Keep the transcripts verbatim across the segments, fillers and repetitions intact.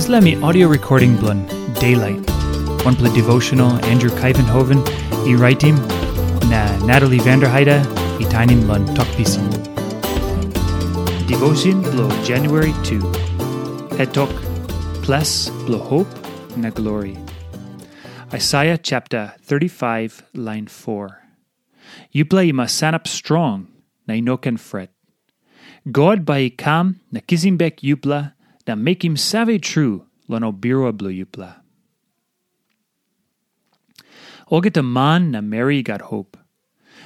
Dispela mi audio recording bilong Daylight. Wanpela devotional Andrew Kaivenhoven i raitim na Natalie Vanderheide i tainim long Tok Pisin. Devotion bilong January two. Het tok, Ples bilong Hope na Glory. Isaiah chapter thirty-five, line four. Yupela i mas sanap strong na i no ken fret. God bai i kam na kisim bek yupela na mekim save tru long ol birua bilong yupela. Olgeta man na meri i gat hop.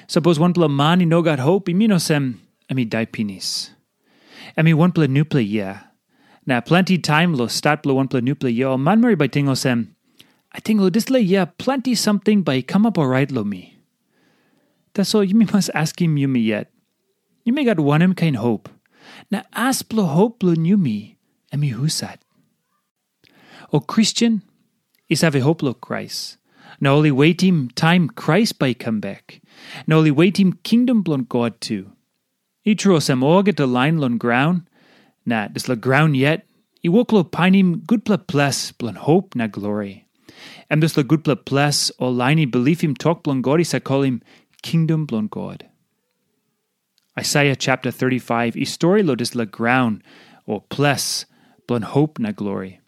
Sapos wanpela man i no gat hop, i min olsem em i dai pinis. Em i wanpela nupela yia. Na planti taim long stat bilong wanpela nupela yia, ol manmeri bai ting olsem, "Ating long dispela yia planti samting bai i kamap orait long mi." Tasol yumi mas askim yumi yet, yumi gat wanem kain hop? Na as bilong hop bilong yumi, em i husat? Ol Kristen i save hop long Krais, na ol i wetim taim Krais bai i kam bek, na ol i wetim kingdom bilong God tu. I tru olsem, olgeta lain long graun, na dispela graun yet, i wok long painim gutpela ples bilong hop na glori. Em dispela gutpela ples ol lain i bilipim tok bilong God i save kolim kingdom bilong God. Isaiah chapter thirty-five i stori long dispela graun o ples bilong hop na glori.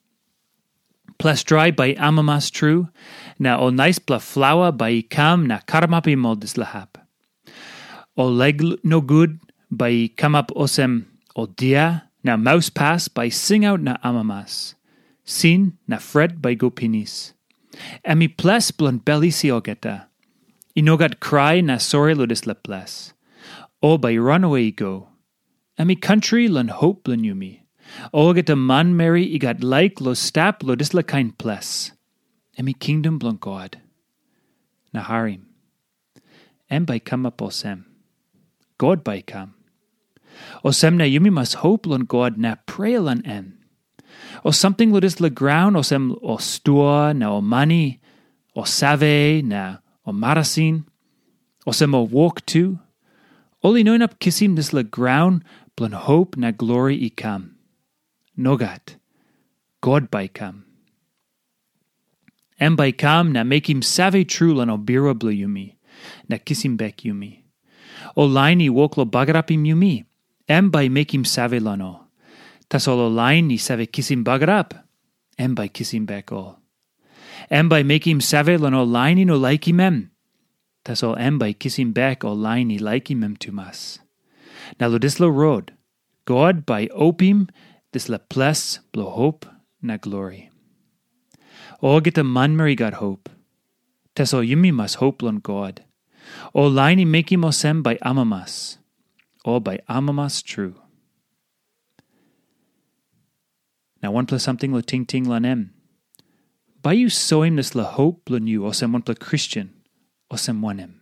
Ples drai bai i amamas tru, na ol naispela flaua bai i kam na karamapim ol dispela hap. Ol laik nogut bai i kamap olsem ol dia, na mauspas bai i singaut na amamas. Sin na fret bai i go pinis. Em i ples bilong bel isi olgeta. I no gat krai na sori long dispela ples. Ol bai i ranawe i go. Em i kantri long hop bilong yumi. Olgeta manmeri i gat laik long stap long dispela kain ples. Em i kingdom bilong God. Na harim. Em bai i kamap olsem. God bai i kam. Olsem na yumi mas hop long God na prea long em. O samting long dispela graun, olsem ol stua na ol mani, ol save na ol marasin, olsem ol wok tu, ol i no inap kisim dispela graun bilong hop na glori i kam. Nogat. God bai i kam. Em bai i kam na mekim save tru long ol birua bilong yumi, na kisim bek yumi. Ol lain i wok long bagarapim yumi, em bai i mekim save long ol. Tasol ol lain i save kisim bagarap, em bai i kisim bek ol. Em bai i mekim save long ol lain i no laikim em. Tasol em bai i kisim bek ol lain i laikim em tumas. Na long dispela rot, God bai i opim dispela ples bilong hop na glori. Olgeta manmeri i gat hop. Tasol yumi mas hop long God. Ol lain i mekim olsem bai amamas. Ol bai amamas tru. Na wanpela samting long tingting long em. Bai yu soim dispela hop bilong yu olsem wanpela Kristen, olsem wanem?